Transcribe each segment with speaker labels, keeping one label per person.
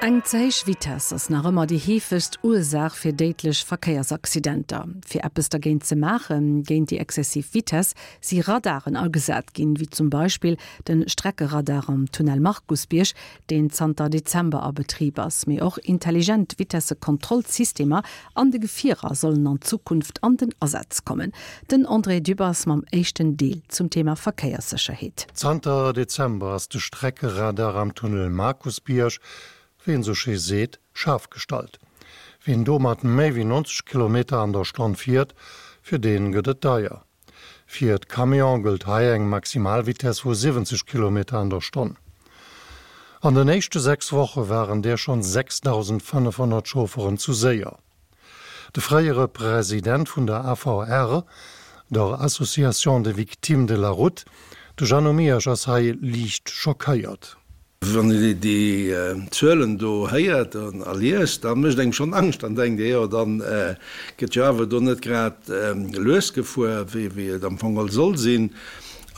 Speaker 1: Eng ze héich Vitess ass nach ëmmer déi heefegst Ursaach fir déidlech Verkéiersaccidenter. Fir eppes dergéint ze maachen, géint déi exzessiv Vitess, si Radaren agesat ginn, wéi zum Beispill de Streckeradar am Tunnel Markusbierg, deen zanter Dezember a Betrib ass. Mee och intelligent Vitessekontrollsystemer an de Gefierer sollen an Zukunft an den Asaz kommen. Den André Dübbers mam éischten Deel zum Thema Verkéierssécherheet.
Speaker 2: Zanter Dezember ass de Streckeradar am Tunnel Markusbierg, wéi een sou schéi seet, schaarf gestallt. Wien do mat méi wéi 90 Kilometer an der Stonn fiert, fir dee gëtt et deier. Fir d'Camione gëllt hei eng Maximalvitess vu 70 Kilometer an der Stonn. An den éischte 6 Woche waren där schonn 6.500 Chaufferen zu séier. De fréiere President vun der AVR, der Association des Victimes de la Route, de Jeannot Miersch ass hei liicht schockéiert.
Speaker 3: Wann een déi Zuelen do héiert a liest, da mécht engem schonn Angscht. Dann denkt ee, jo, da gëtt jo awer do net grad lues gefuer, wéi et am Fong geholl soll sinn.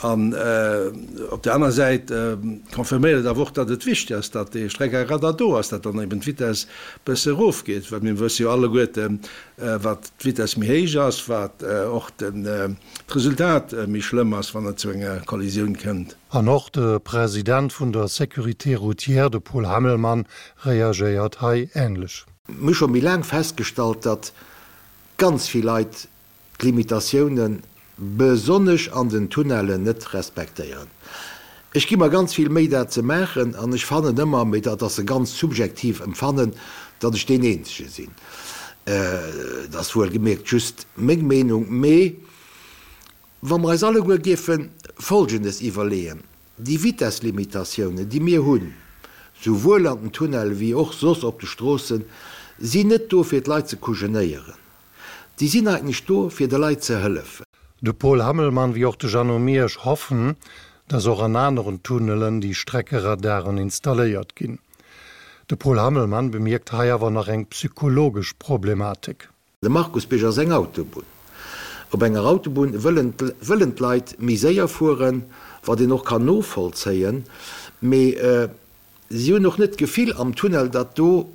Speaker 3: An op där aner Säit confirméiert et awer och, datt et wichteg ass, datt dee Streckeradar do ass, datt dann eben d'Vitess e bësse erofgeet, well mir wësse jo alleguerten, wat d'Vitess méi héich ass, wat och d'Resultat méi schlëmm ass, wann et zu enger Kollisioun kënnt.
Speaker 2: An och de President vun der Sécurité routière, de Paul Hammelmann, reagéiert hei änlech.
Speaker 4: Mir hu scho méi laang festgestallt, datt ganz vill Leit d'Limitatiounen, besonnesch an den Tunnellen, net respektéieren. Ech gi mer ganz vill Méi dat ze maachen an ech fannen ëmmer, mee dat ass e ganz subjektiv Empfannen, datt ech deen Eenzege sinn. Dat ass wuelgemierkt just meng Meenung, mee wa mer eis alleguer géife Folgendes iwwerleeën, Déi Vitesslimitatiounen, déi mir hunn, souwuel an den Tunnelle wéi och soss op de Stroossen, sinn net do fir d'Leit ze kujenéieren. Déi sinn eigentlech do, fir de Leit ze hëllefen.
Speaker 2: De Paul Hammelmann wéi och de Jeannot Miersch hoffen, dass och an aneren Tunnelen déi Streckeradaren installéiert ginn. De Paul Hammelmann bemierkt hei awer nach eng psychologesch Problematik.
Speaker 4: De Markusbierg ass eng Autobunn. Op enger Autobunn wëllen wëllen d'Leit méi séier fueren, wat een och kann novollzéien, mee Si hunn och net d'Gefill am Tunnel, datt do,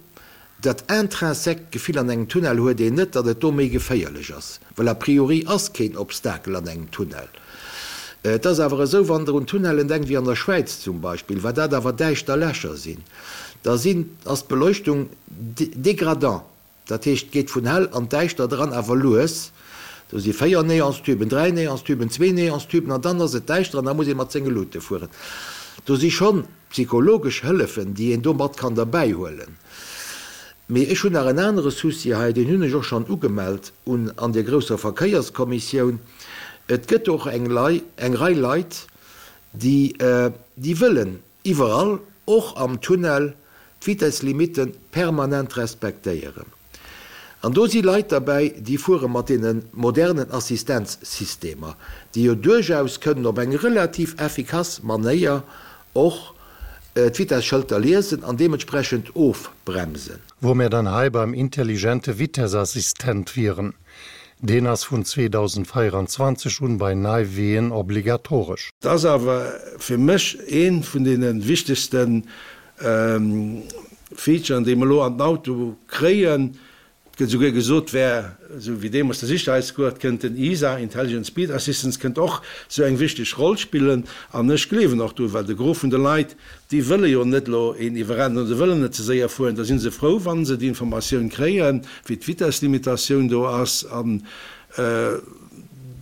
Speaker 4: dat intrinsèque Gefill an engem Tunnel huet een net, datt et do méi geféierlech ass, well a priori ass keen Obstakel an engem Tunnel. Et ass awer esou, wann Der un Tunnellen denkt, wéi an der Schwäiz zum Beispill, wat dat awer däischter Lächer sinn, da sinn, ass d'Beleuchtung dégradant. Dat heescht, et geet vun hell an däischter dran, awer lues. Do si 4 Neonstüben, 3 Neonstüben, zwee Neonstüben an dann ass et däischter an da muss ee mat senge Luute fueren. Do si schonn psychologesch Hëllefen, déi een do mat kann derbäi huelen. Mee ech hunn nach en anere Souci hei, deen hunn ech och schonn ugemellt un an der grousser Verkéierskommissioun. Et gëtt och eng Lei, eng Rei Leit, déi, déi wëllen Iwwerall, och am Tunnel, d'Vitesslimitten permanent respektéieren. An do si Leit derbäi, déi fuere mat deene modernen Assistenzsystemer, déi jo duerchaus kënnen op eng relativ effikass Manéier och d'Vitesschëlter liesen an deementsprechend ofbremsen.
Speaker 2: Wou mir dann hei beim intelligente Vitessassistent wieren. Deen ass vun 2024 un bei nei Ween obligatoresch.
Speaker 3: Et ass awer fir mech ee vun deene wichtegste Featuren, déi mer elo an den Auto kréien. Et gëtt esouguer gesot, wär esou wéi deemools de Sicherheitsgurt, kënnt den ISA, Intelligent Speed Assistance, kënnt och esou eng wichteg Roll spillen. An ech gleewen och dru, well de Gros vun de Leit, Déi wëlle jo net elo een iwwerrennen oder wëllen net ze séier fueren. Da si se frou, wa se déi Informatioun kréien, wéi d'Vitesslimitatioun do ass an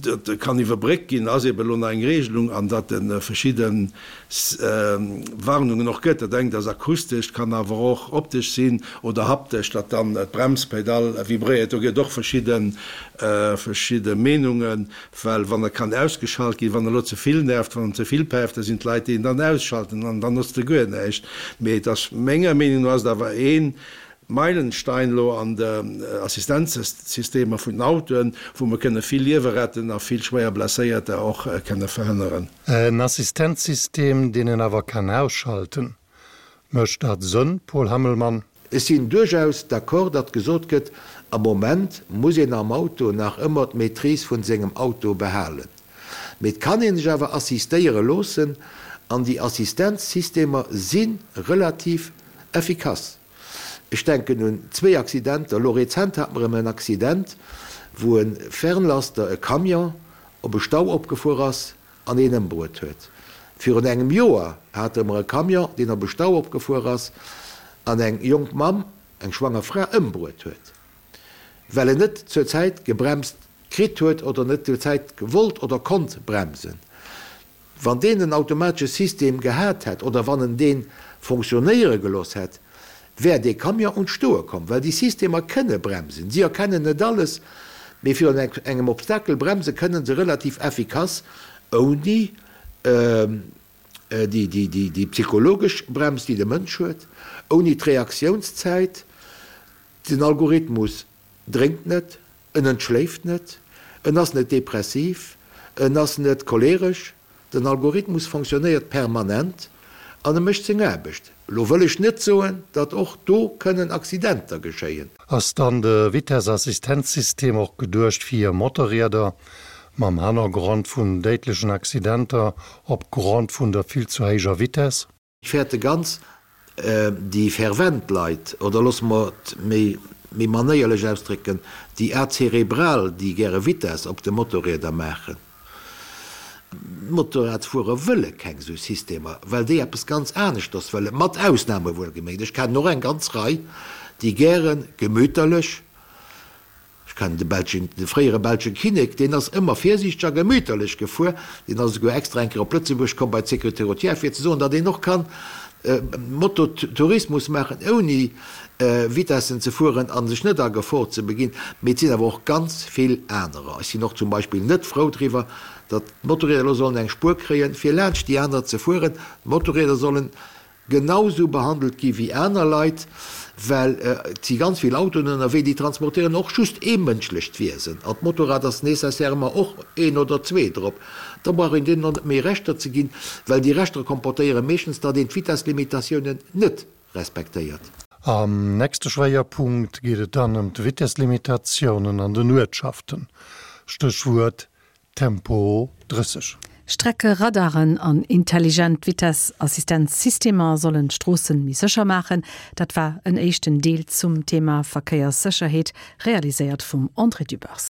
Speaker 3: dat kann iwwerbréckt ginn, ass eeben elo nach eng Regelung an datt e verschidde Warnungen och gëtt. Dat engt ass akustesch, kann awer och optesch sinn oder haptesch, datt dann d'Bremspedall vibréiert. Do gëtt et och verschidde verschidde Meenungen. Well wann e kann ausgeschalt ginn, wann e lo ze vill nervt, wann en ze vill päift, da sinn d'Leit, déi en dann ausschalten an dann notzt e guer näischt. Mee et ass, menger Meenung no ass et awer ee Meilenstein elo an de Assistenzsystemer vun den Autoen, wou mer kënne vill Liewe retten a vill schwéier Blesséierter och kënne verhënneren.
Speaker 2: En Assistenzsystem, deen een awer kann ausschalten. Mécht dat Sënn, Paul Hammelmann?
Speaker 4: Ech sinn duerchaus d'accord, datt gesot gëtt, am Moment muss een am Auto nach ëmmer d'Maîtrise vun sengem Auto behalen. Mee et kann ee sech awer assistéiere loossen an déi Assistenzsystemer si relativ effikass. Ech denken un zwéi Accidenter. Elo rezent hate mer erëm en Accident, wou e Fernlaster, e Camion, op e Stau opgefuer ass an een ëmbruet huet. Virun engem Joer hate mer e Camion, deen op e Stau opgefuer ass an eng jonk Mamm, eng schwanger Fra, ëmbruet huet, well en net zur Zäit gebremst kritt huet oder net zur Zäit wollt oder konnt bremsen. Wann deen en automatesche System gehat hätt oder wann en dee fonctionnéiere gelooss hätt, wär dee Camion un d'Stoe komm, well déi Systemer kënne bremsen. Si erkennen net alles, mee virun engem Obstakel bremse kënne se relativ effikass, ouni déi psychologesch Brems, déi de Mënsch huet, ouni d'Reaktiounszäit. Den Algorithmus drénkt net, en entschléift net, en ass net depressiv, en ass net choleresch. Den Algorithmus fonctionnéiert permanent an e mécht seng Aarbecht. Elo wëll ech net soen, datt och do kënnen Accidenter geschéien.
Speaker 2: Ass dann de Vitesseassistenzsystem och geduecht fir Motorrieder mam Hannergrond vun déidlechen Accidenter op Grond vun der vill zu héijer Vitess?
Speaker 4: Ech fäerte ganz déi fervent Leit, oder loosse mer et méi méi manéierlech ausdrécken, déi Azerebral, déi gäre Vitess op de Motorrieder maachen. D'Motorradsfuerer wëlle keng esou Systemer, well déi eppes ganz aneschters wëllen, mat Ausname wuelgeméngt. Ech kennen och eng ganz Rei, déi gäre gemüterlech, Ech kennen de belschen, de fréiere belsche Kinnek, deen ass ëmmer virsiichteg a gemüterlech gefuer. Deen ass esouguer extra eng Kéier op Lëtzebuerg komm bei d'Sécurité routière, fir ze soen, datt een och kann Mototourismus maachen, ouni Vitessen ze fueren a sech net a Gefor ze beginn. Mee et sinn awer och ganz vill anerer. Ech sinn och zum Beispill net frou driwwer, datt d'Motorrieder elo sollen eng Spuer kréien, fir laanscht déi aner ze fueren. D'Motorrieder sollen genau sou behandelt gi wéi aner Leit, well et si ganz vill Autoen ënnerwee, déi transportéieren och just ee mënschlecht Wiesen an d'Motorrad ass nécessairement och een oder zwee drop. Da brauch een deenen och net méi Rechter ze ginn, well déi Rechter comportéiere meeschtens, datt een d'Vitesslimitatiounen net respektéiert.
Speaker 2: Am nächste Schwéierpunkt geet et dann ëm d'Vitesslimitatiounen an den Uertschaften, Stéchwuert Tempo 30.
Speaker 1: Streckeradaren an intelligent Vitessassistenzsystemer sollen d'Stroossen méi sécher maachen. Dat war en éischten Deel zum Thema Verkéierssécherheet, realiséiert vum André Dübbers.